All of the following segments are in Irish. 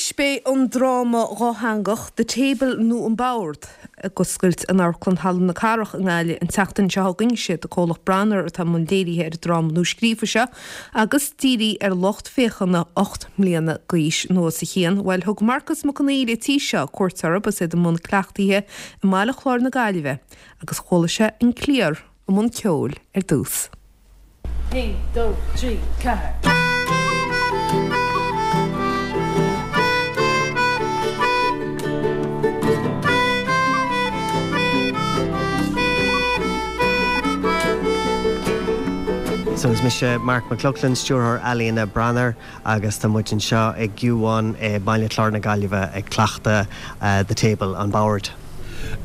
Anois beidh an dráma dhátheangach The Table nó An Bord ag oscailt in Amharclann Halla na Cathrach i nGaillimh an tseachtain seo chugainn. Is iad an comhlacht Branar atá i mbun léirithe ar an dráma nuascríofa seo agus dírithe ar lucht féachana 8 mbliana d'aois nó os a chionn. Bhuel, thug Marcus Mac Conghail an tí seo cuairt orthu agus iad i mbun cleachtaithe i mBaile Chláir na Gaillimhe agus chuala sé an cliar i mbun ceoil ar dtús. 1, 2, 3, 4. So is mise Marc Mac Lochlainn, Stiúrthóir Ealaíona Branar agus tá muid anseo ag U1 i mBaile Chláir na Gaillimhe ag cleachtadh The Table, an bord.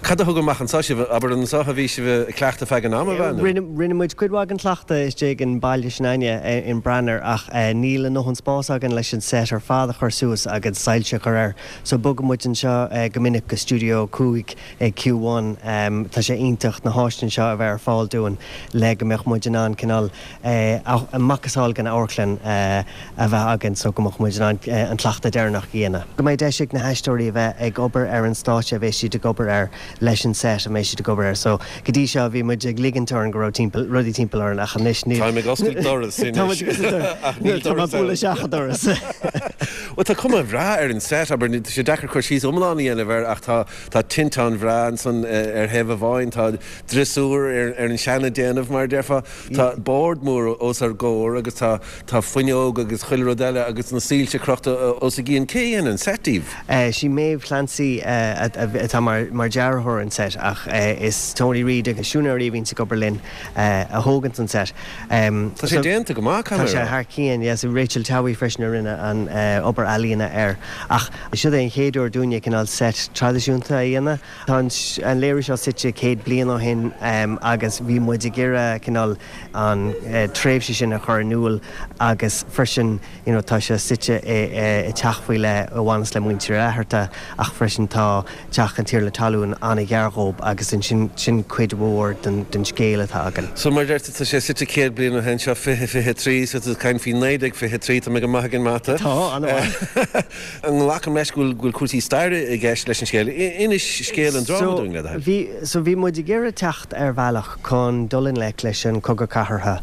Cad a thug amach anseo sibh? Abair, anseo a bhí sibh ag cleachtadh feadh an ama, ab ea, nó? Rinne muid cuid mhaith den chleachtadh istigh in baile s'againne in Branar ach níl a ndóthain spáis againn leis an set ar fad a chur suas agus soilse a chur air so bogann muid anseo go minic go Studio 5 ag Q1. Tá sé iontach na háiseanna seo a bheith ar fáil dúinn le go mbeadh muid in ann cineál macasamhail den amharclann a bheith againn so go mbeadh muid in ann an cleachtadh deireanach a dhéanamh. Go mbeidh deis ag na haisteoirí a bheith ag obair ar an stáitse a bheas siad ag obair air leis an set a mbeidh siad ag obair air. So go dtí seo bhí muid ag ligint orainn go raibh timpeall, rudaí timpeall orainn ach anois níl. Táim ag oscailt doras anois ach níl doras ann. Tá mé ag bualadh isteach an doras. Bhuel tá cuma bhreá ar an set, abair, tá sé deacair cur síos iomlán a dhéanamh air ach tá tá tinteán bhreá ansan ar thaobh amháin, tá driosúr ar an seana-déanamh mar a déarfá. Tá bord mór os ár gcomhair agus tá tá fuinneog agus chuile rud eile agus na soilse crochta os a gcionn. Cé a dhein an set daoibh? Sí Maeve Clancy atá mar dearthóir an set ach is Tony Reid agus siúinéirí a bhíonns ag obair linn a thóganns an set. Tá sé déanta go maith, caithfidh mé a rá. Tá sé thar cionn, yes. Rachel Towey freisin a rinne an obair ealaíona air. Ach siod é an chéad uair dúinne cineál set traidisiúnta a dhéanamh. Tá an léiriú seo suite 100 bliain ó shin agus bhí muid ag iarraidh cineál an tréimhse sin a chur in iúl agus freisin you know tá sé suite i teach faoi leith a bhaineas le muintir Uí Fhlatharta ach freisin tá teach an Tiarna Talún an-ghar dhób agus ansin sin cuid mhór den scéal atá againn. So mar a deir tú tá sé suite 100 bliain ó shin, seo 2023 so tá tú ag caint faoi 1923, tá mé go maith ag an mata. Tá, an-mhaith. Glacaim leis go bhfuil cúrsaí staire i gceist leis an scéal. Inis scéal an dráma dúinn, le do thoil. Bhí, so bhí muid ag iarraidh teacht ar bhealach chun dul i ngleic leis an Cogadh Cathartha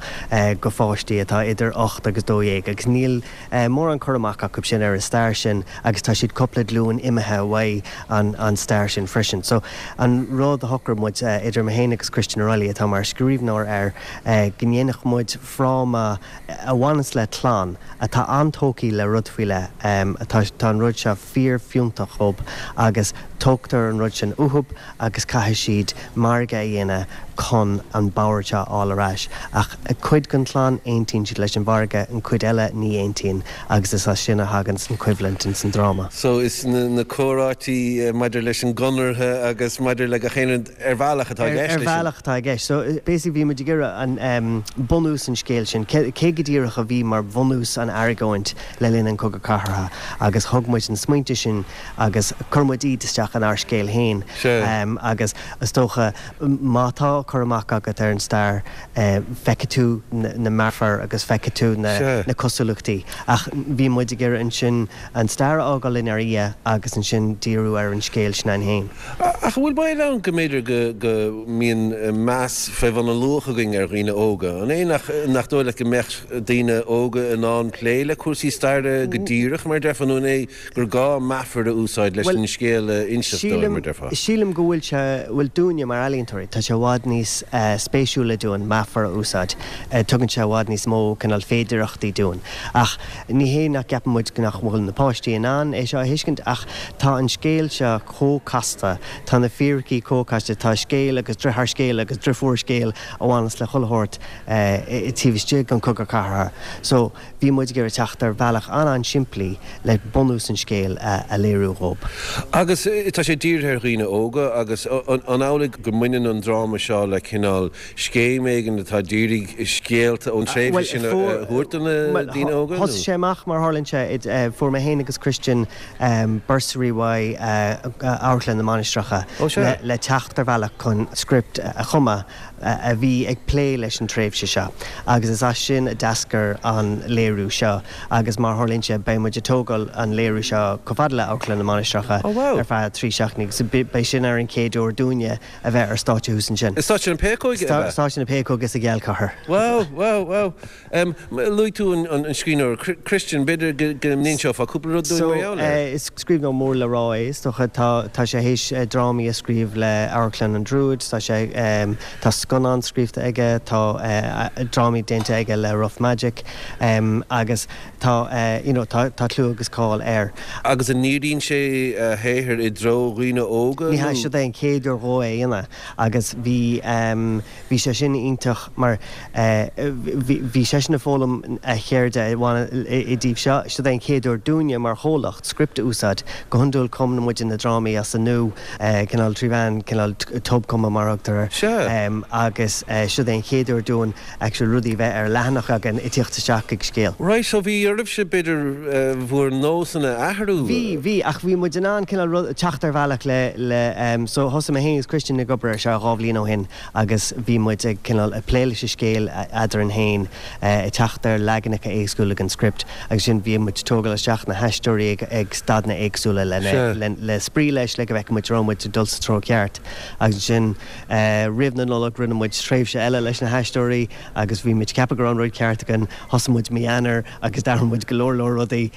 go pháistí atá idir 8 agus 12 agus níl mórán cur amach acu sin ar an stair sin agus tá siad cúpla glúin imithe uaidh an an stair sin freisin. So an rud a shocraigh muid, idir mé féin agus Christian O'Reilly atá mar scríbhneoir air, go ndéanfadh muid fráma a bhaineas le clann atá an-tógtha le rud faoi leith. Tá tá an rud seo fíor-fhiúntach dhób agus tógtar an rud sin uathub agus caithfidh siad margadh a dhéanamh chun an bord seo a fháil ar ais. Ach cuid den chlann, aontaíonn siad leis an mhargadh, an cuid eile ní aontaíonn agus is as sin a thaganns an choimhlint ins an dráma. So is na comhráití maidir leis an gconradh agus maidir le gach aon rud ar bhealach atá i gceist leis sin. Ar bhealach atá i gceist. So basically bhí muid ag iarraidh an bunús an scéil sin, cé go díreach a bhí mar bhunús an argóint le linn an Cogadh Cathartha agus thug muid na smaointe sin agus chuir muid iad isteach inár scéal féin agus is dócha má tá cur amach agat ar an stair feicfidh tú na meafair agus feicfidh tú na cosúlachtaí ach bhí muid ag iarraidh ansin an stair a fhágáil inár ndiaidh agus ansin díriú ar an scéal sin againn féin. Ach an bhfuil baol ann go mb'fhéidir go go mbíonn meas fé bhun a luach againn ar dhaoine óga? An é nach nach dóigh leat go mbeadh daoine óga in ann plé le cúrsaí staire go díreach, mar a déarfá, nó an é gur gá meafair a úsáid leis an scéal a inseacht dóibh, mar a déarfá? Sílim go bhfuil sé, bhuel dúinne mar ealaíontóirí, tá sé i bhfad níos spéisiúla dúinn meafair a úsáid. Tugann sé i bhfad níos mó cineál féidireachtaí dúinn. Ach ní hé nach gceapann muid nach bhfuil na páistí in ann é seo a thuiscint ach tá an scéal seo chomh casta, tá na fíricí chomh casta, tá scéal agus driotháir scéil agus driofúr scéil a bhaineas le chuile shórt taobh istigh den Chogadh Cathartha. So bhí muid ag iarraidh teacht ar bhealach an-an-simplí le bunús an scéil a léiriú dhób. Agus tá sé dírithe ar dhaoine óga agus an amhlaidh go mbaineann an dráma seo le cineál scéim éigin atá d'iarraidh scéalta ón tréimhse sin a thabhairt do na daoine óga, nó? Thosaigh sé amach, mar a tharlaíonn sé, fuair mé féin agus Christian bursary uaidh Amharclann na Mainistreacha le teacht ar bhealach chun script a chumadh. a bhí ag plé leis an tréimhse seo agus is as sin a d'eascair an léiriú seo agus mar a tharlaíonn sé beidh muid ag tógáil an léiriú seo chomh fada le Amharclann na Mainistreacha ar feadh 3 seachtainí agus beidh sin ar an chéad uair dúinne a bheith ar stáitse thuas ansin. I Stáitse na Péacóige, ab ea? Stáitse na Péacóige sa Ghealchathair. Wow, wow, wow. Luaigh tú an scríbhneoir Christian, b'fhéidir go n-inseofá cúpla rud dúinn mar gheall air? So, is scríbhneoir mór le rá é, is dócha. Tá, tá sé théis drámaí a scríobh le Amharclann an Druid, tá sé, tá scannán scríofa aige, tá drámaí déanta aige le Rough Magic, agus tá, you know, tá, tá clú agus cáil air. Agus an ndíríonn sé a shaothar i dtreo dhaoine óga nó? Ní hea, siod é an chéad uair dhó é a dhéanamh agus bhí, Bhí sé sin iontach mar bhí seisean ag foghlaim a cheirde i dtaobh seo. Siod é an chéad uair dúinne mar chomhlacht script a úsáid. Go hiondúil cumann muide na drámaí as an nua, cineál trí mheán cineál tobchumadh mar a thugtar air. Agus siod é an chéad uair dúinn actually rudaí a bheith ar leathanach againn ag tíocht isteach ag scéal. Right, so bhí oraibhse b'fhéidir bhur nósanna a athrú? Bhí, bhí, ach bhí muid in ann cineál rud, teacht ar bhealach le, le, so thosaigh mé féin agus Christian ag obair ar seo 2 bhliain ó shin agus bhí muid ag cineál ag plé leis an scéal eadrainn féin, ag teacht ar leaganacha éagsúla den script agus ansin bhí muid ag tógáil isteach na haisteoirí ag, ag staideanna éagsúla le, le, le spraoi leis le go bhfeicfeadh muid raibh muid ag dul sa treo ceart agus ansin roimh na Nollag rinne muid tréimhse eile leis na haisteoirí agus bhí muid ag ceapadh go raibh an rud ceart againn, thosaigh muid mí Eanáir agus d'athraigh muid go leor leor rudaí.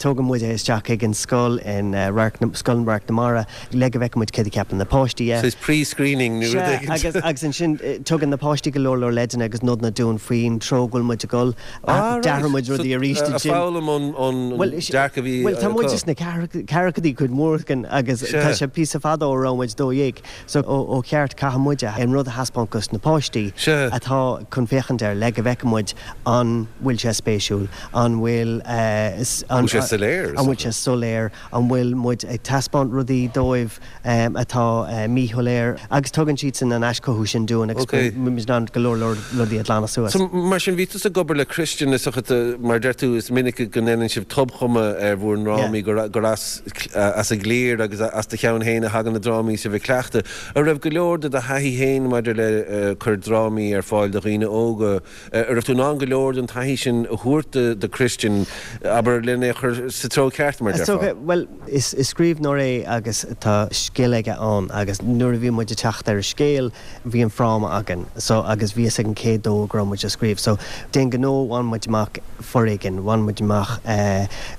Tógann muid é isteach chuig an scoil in Radharc na, Scoil Radharc na Mara le go bhfeicfidh muid céard a cheapann na páistí dhe. Saghas pre-screening nó rud éigin. Sea, agus, agus ansin tugann na páistí go leor leor leideanna agus nodanna dúinn faoin treo go bhfuil muid ag dul. Ah, right. D'athraigh muid rudaí arís ansin. Ag foghlaim ón, ón dearcadh a bhí acu. Bhuel, tá muid sna ceathrachaidí cuid mhór againn agus tá sé píosa fada ó raibh muid 12. So, ó cheart, caithfidh muid an rud a thaispeáint dos na páistí atá chun féachaint air le go bhfeicfidh muid an bhfuil sé spéisiúil, an bhfuil, an bhfuil sé soiléir, an bhfuil sé soiléir, an bhfuil muid ag taispeáint rudaí dóibh atá míshoiléir agus tugann siadsan an aischothú sin dúinn agus muid in ann go leor leor rudaí a ghlanadh suas. So, mar sin, bhí tusa ag obair le Christian is dócha, mar a deir tú, is minic go ndéanann sibh tobchumadh ar bhur ndrámaí, gur as. as an gcliar agus as do cheann féin a thagann na drámaí sibh ag cleachtadh. An raibh go leor de do thaithí féin maidir le cur drámaí ar fáil do dhaoine óga, an raibh tú in ann go leor den taithí sin a thabhairt do Christian, abair, len é a chur sa treo ceart, mar a déarfá? Bhuel, is scríbhneoir é agus tá scil aige ann agus nuair a bhí muid ag teacht ar an scéal, bhí an fráma againn so agus bhí fhios againn cé dó go raibh muid ag scríobh so d'aon ghnó bhain muid amach foréigean, bhain muid amach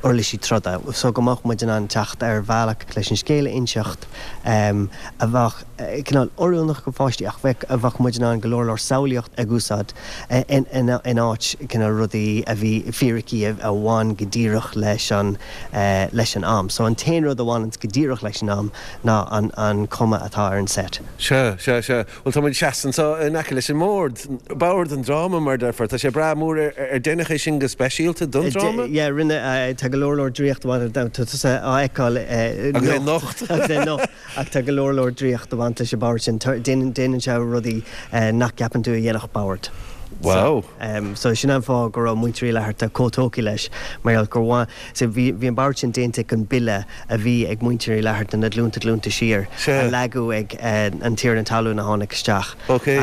uirlisí troda so go mbeadh muid in ann teacht ar bhealach leis an scéal a inseacht a bheadh cineál oiriúnach go pháistí ach bheadh a bheadh muid in ann go leor leor samhlaíocht ag úsáid in áit cineál rudaí a bhí fíricí a bhain go díreach leis an leis an am. So an t-aon rud a bhaineanns go díreach leis an am ná an an cuma atá ar an set. Sea, sea, sea. Bhuel, tá muid seasta anseo in aice leis an mbord, bord an dráma, mar a déarfá. Tá sé breá mór. Ar deineadh é sin go speisialta don dráma? Yeah, rinne, tá go leor leor draíocht a bhaint, tá tusa á fheiceáil Agus é nocht. Agus é nocht. Ach tá go leor leor draíocht a bhaint leis an bord sin. Déanann, déanann sé rudaí nach gceapann tú a dhéanfadh bord. Wow. So sin an fáth go raibh muintir Uí Fhlatharta chomh tógtha leis, mar gheall gur bhain, so bhí, bhí an bord sin déanta chun bille a bhí ag muintir Uí Fhlatharta na glúnta glúnta siar a leagadh ag an tiarna talún a tháinig isteach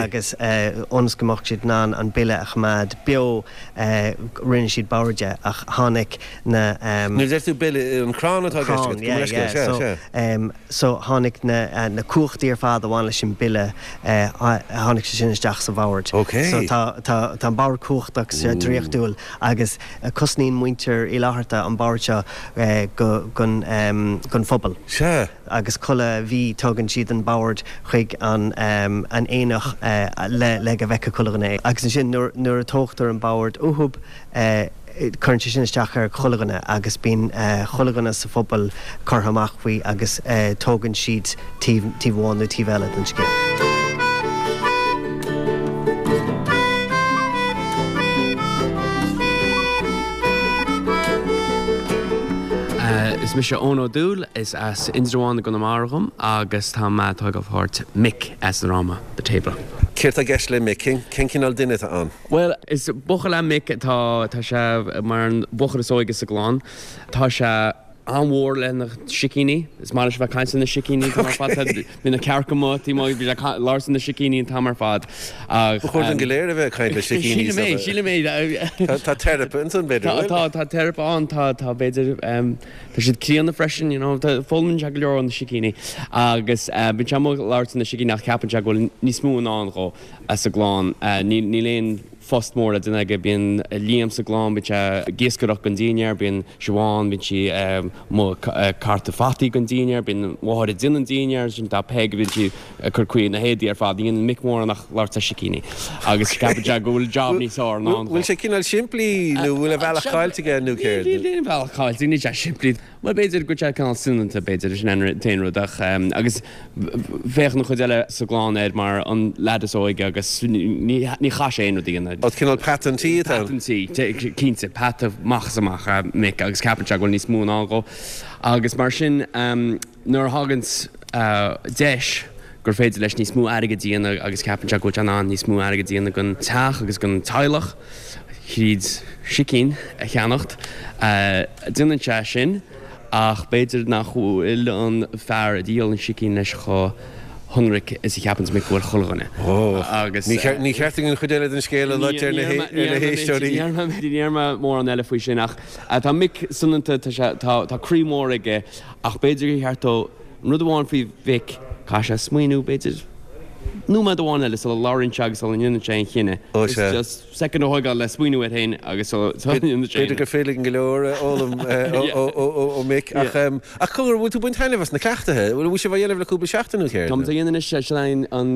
agus ionas go mbeadh siad in ann an bille a choimeád beo rinne siad bord de ach tháinig na. Nuair a deir tú bille, an crann atá i gceist agat? Crann, yeah, yeah, so so tháinig na na cumhachtaí ar fad a bhain leis an bille tháinig sé sin isteach sa bhord. So tá tá tá an bord cumhachtach draíochtúil agus Cosnaíonn muintir Uí Fhlatharta an bord seo gon phobal. Sea. Agus chuile mhí tugann siad an bord chuig an aonach le go bhfeicfeadh chuile dhuine é. Agus ansin nuair a tógtar an bord uathub, cuireann sé sin isteach ar chuile dhuine agus bíonn chuile dhuine sa phobal curtha amach faoi agus tógann siad taobh amháin nó taobh eile den scéal. Is mise Eoin Ó Dúill, is as Indreabhán i gConamara dhom agus tá mé ag tógáil páirt Mick sa dráma The Table. Céard tá i gceist le Mick? Cén cineál duine atá ann? Bhuel, is buachaill é Mick atá, tá sé mar an buachaill is óige sa gclann. Tá sé. an-mhór le na sicíní. Is maith leis a bheith ag caint le na sicíní an t-am ar fad. Bíonn na cearca amuigh taobh amuigh, bíonn sé ag labhairt le na sicíní an t-am ar fad. Ba chóir dúinn go léir a bheith ag caint le sicíní. Sílim é, sílim é. Tá teiripe ansan, b'fhéidir, an bhfuil? Tá, tá teiripe ann, tá, tá, b'fhéidir, tá siad críonna freisin, you know, foghlaimíonn sé go leor ó na sicíní. Agus bíonn sé amuigh ag labhairt le na sicíní ach ceapann sé go bhfuil níos mó i ndán dhó sa gclann. Níl aon phost mór le déanamh aige. Bíonn Liam sa gclann, bíonn sé ag iascaireacht don dínnéar, bíonn Siobhán, bíonn sí amuigh ag cartadh fataí don dínnéar, bíonn an mháthair ag déanamh an dínnéar, ansin tá Peig, bíonn sí ag cur caoi na héadaí ar fad. Ní dhéanann Mick mórán ach labhairt le sicíní agus ceapann sé go bhfuil job níos fearr i ndán dó. Bhfuil sé cineál simplí nó bhfuil a bhealach caillte aige nó céard? Níl aon bhealach caillte, níl sé simplí. Bhuel, b'fhéidir go bhfuil sé cineál soineanta, b'fhéidir, sin an t-aon rud ach, agus féachann an chuid eile sa gclann air mar an leaid is óige agus ní chaithfidh sé aon rud a dhéanamh. Ó, cineál peata an tí atá ann. Peata an tí, cinnte, peata amach is amach é Mick agus ceapann sé go bhfuil níos mó i ndán dhó. Agus mar sin, nuair a thagann deis gur féidir leis níos mó airgid a dhéanamh agus ceapann sé go bhfuil sé in ann níos mó airgid a dhéanamh don teach agus don teaghlach, thríd sicín a cheannacht. Déanann sé sin ach b'fhéidir nach bhfuil an fear a dhíol an sicín leis chomh hionraic is a cheapanns Mick go bhfuil chuile dhuine. Agus. Ní cheart dúinn an chuid eile den scéal a loit ar na héisteoirí. Ní déarfaidh mé mórán eile faoi sin ach tá Mick soineanta, tá sé, tá croí mór aige ach b'fhéidir gur cheart dó an rud amháin faoi Mhick, caithfidh sé smaoineamh b'fhéidir nóiméad amháin eile sula labhraíonn sé agus sula ndéanann sé aon chinneadh. Ó sea. Just soicind a thógáil le smaoineamh air féin agus sula ndéanann sé aon. B'fhéidir gur féidir linn go leor a fhoghlaim ó Mick. Ach cogar, bhfuil tú ag baint taitneamh as na cleachtaithe? Bhfuil sibh á dhéanamh le cúpla seachtain nó céard? Táimid á dhéanamh anois, sin é an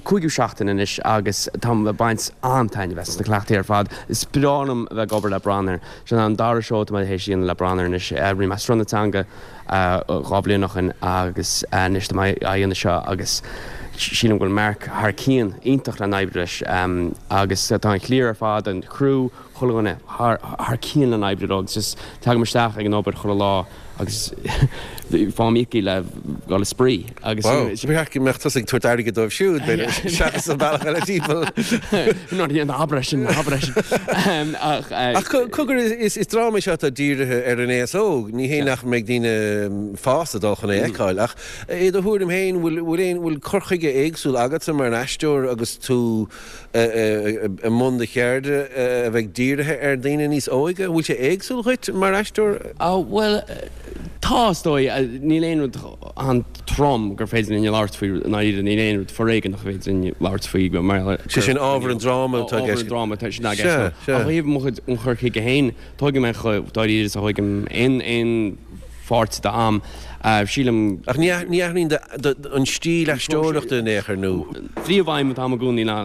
cúigiú seachtain anois agus táim ag baint an-taitneamh as na cleachtaí ar fad. Is breá liom a bheith ag obair le Branar. Sin an dara seó atá mé théis a dhéanamh le Branar anois. Rinne mé Sruth na Teanga 2 bhliain ó shin agus anois tá mé á dhéanamh seo agus sílim go bhfuil Mark thar cionn, iontach le n-oibriú leis agus tá an chliar ar fad, an criú, chuile dhuine thar cionn le n-oibriú leo agus just tagaim isteach ag an obair chuile lá agus faighim íoctha le dhul ag spraoi agus. Wow, ba cheart go mbeadh tusa ag tabhairt airgid dóibh siúd, b'fhéidir, seachas an bealach eile timpeall. Ná ná abair é sin, ná abair é sin. Ach. Ach cogar, is dráma é seo atá dírithe ar an aos óg, ní hé nach mbeidh daoine fásta ag dul chun é a fheiceáil, ach i do thuairim féin, bhfuil aon, bhfuil cur chuige éagsúil agatsa mar aisteoir agus tú i mbun do cheirde a bheidh dírithe ar dhaoine níos óige? Bhfuil sé éagsúil dhuit mar aisteoir? Bhuel, tá, is dóigh. Níl aon rud an-trom gur féidir linn a labhairt faoi, i ndáiríre, níl aon rud foréigeanach a féidir linn labhairt faoi mar gheall ar. Sé sin ábhar an dráma atá i gceist. Ábhar an dráma atá sin i gceist. Sea, sea. Ach ó thaobh mo chuid, an chur chuige féin, tógaim é chomh dáiríre is a thógaim aon, aon pháirt d'am. Sílim. Ach ní athraíonn an stíl aisteoireachta in aon chor, nó? Príomhaidhm atá agam i gcónaí ná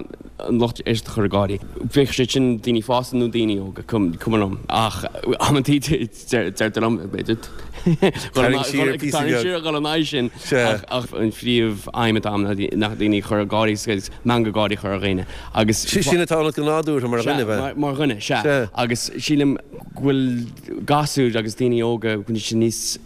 an lucht éisteachta a chur ag gáirí. Bíodh sé sin daoine fásta nó daoine óga, cuma liom. Ach amantaí deirtear liom, b'fhéidir, Tarraing siar píosa beag. Tarraing siar, dul in aghaidh sin. Ach an phríomhaidhm atá agam ná daoine a chur ag gáirí agus meangadh gáirí a chur ar dhaoine. Agus. Sin atá ionat go nádúrtha mar dhuine, ab ea? Mar dhuine, sea. Agus sílim go bhfuil. gasúir agus daoine óga, go bhfuil siad níos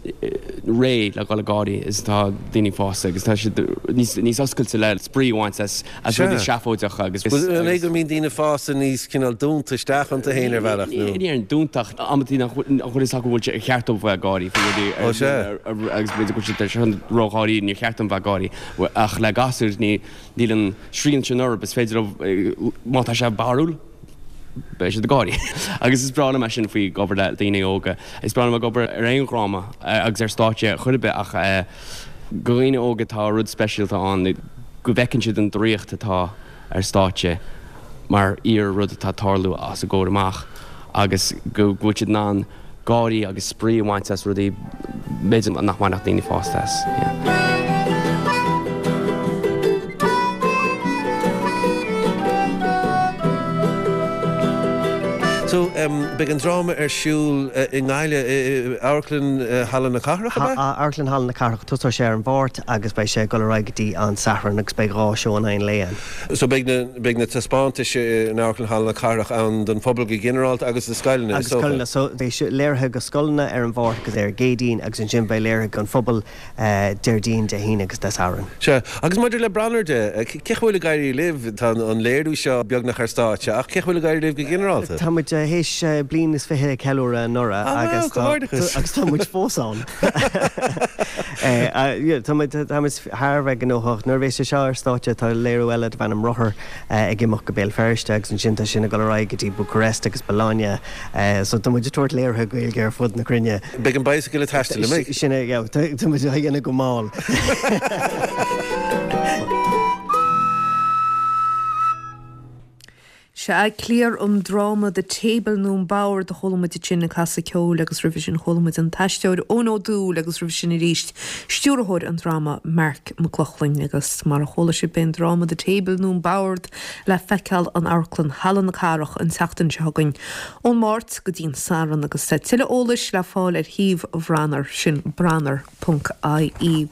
réidh le dhul ag gáirí is atá daoine fásta agus tá siad níos níos oscailte le spraoi a bhaint as as rudaí seafóideacha agus. An é go mbíonn daoine fásta níos cineál dúnta isteach iontu féin ar bhealach nó? Ní déarfainn dúnta ach amantaí nach bhfuil nach bhfuil fhios acu bhfuil sé ar cheart dóibh bheith ag gáirí faoi rudaí Ó sea. agus b'fhéidir go bhfuil siad ar ródháiríre níor cheart dom bheith ag gáirí ach le gasúir ní níl an srian sin orthu is féidir leo má tá sé barrúil beidh siad ag gáirí. Agus is breá liom é sin faoi ag obair le daoine óga. Is breá liom ag obair ar aon dhráma agus ar stáitse chor ar bith ach do dhaoine óga tá rud speisialta ann go bhfeiceann siad an draíocht atá ar stáitse mar fhíor rud atá ag tarlú os a gcomhair amach agus go bhfuil siad in ann gáirí agus spraoi a bhaint as rudaí b'fhéidir nach mbainfeadh daoine fásta as. So, beidh an dráma ar siúl i nGaillimh, i Amharclann Halla na Cathrach, ab ea? Amharclann Halla na Cathrach. Tosóidh sé ar an Mháirt agus beidh sé ag dul ar aghaidh go dtí an Satharn agus beidh 2 seó in aghaidh an lae ann. So beidh na, beidh na taispeántais in Amharclann Halla na Cathrach ann don phobal go ginearálta agus do scoileanna, is dócha? Agus scoileanna. So beidh léirithe do scoileanna ar an Mháirt agus ar an gCéadaoin agus ansin beidh léirithe don phobal Déardaoin, Dé hAoine agus Dé Sathairn. Sea. Agus maidir le Branar de, cén chaoi a bhfuil ag éirí libh? Tá an léiriú seo beagnach ar stáitse ach cén chaoi a bhfuil ag éirí libh go ginearálta? Tá muid. théis bliain is 20 a cheiliúradh anuraidh agus tá agus tá muid fós ann. Tá muid tá muid thar a bheith gnóthach. Nuair a bheas sé seo ar stáitse tá léiriú eile darb ainm Rothar ag imeacht go Béal Feirste agus ansin tá sin ag dul ar aghaidh go dtí Bucharest agus Bologna. So tá muid ag tabhairt léirithe Gaeilge ar fud na cruinne. Beidh an bicycle ag taisteal, an mbeidh? Sin é, yeah, tá muid á dhéanamh go mall. Sea, cliar an dráma The Table nó An Bord a chuala muid ansin ag casadh ceoil agus roimhe sin chuala muid an t-aisteoir Eoin Ó Dúill agus roimhe sin arís stiúrthóir an dráma Marc Mac Lochlainn agus mar a chuala sibh beidh an dráma The Table nó An Bord le feiceáil in Amharclann Halla na Cathrach an tseachtain seo chugainn ón Máirt go dtí an Satharn agus tá tuilleadh eolais le fáil ar shuíomh Bhranar, sin branar ponc ie.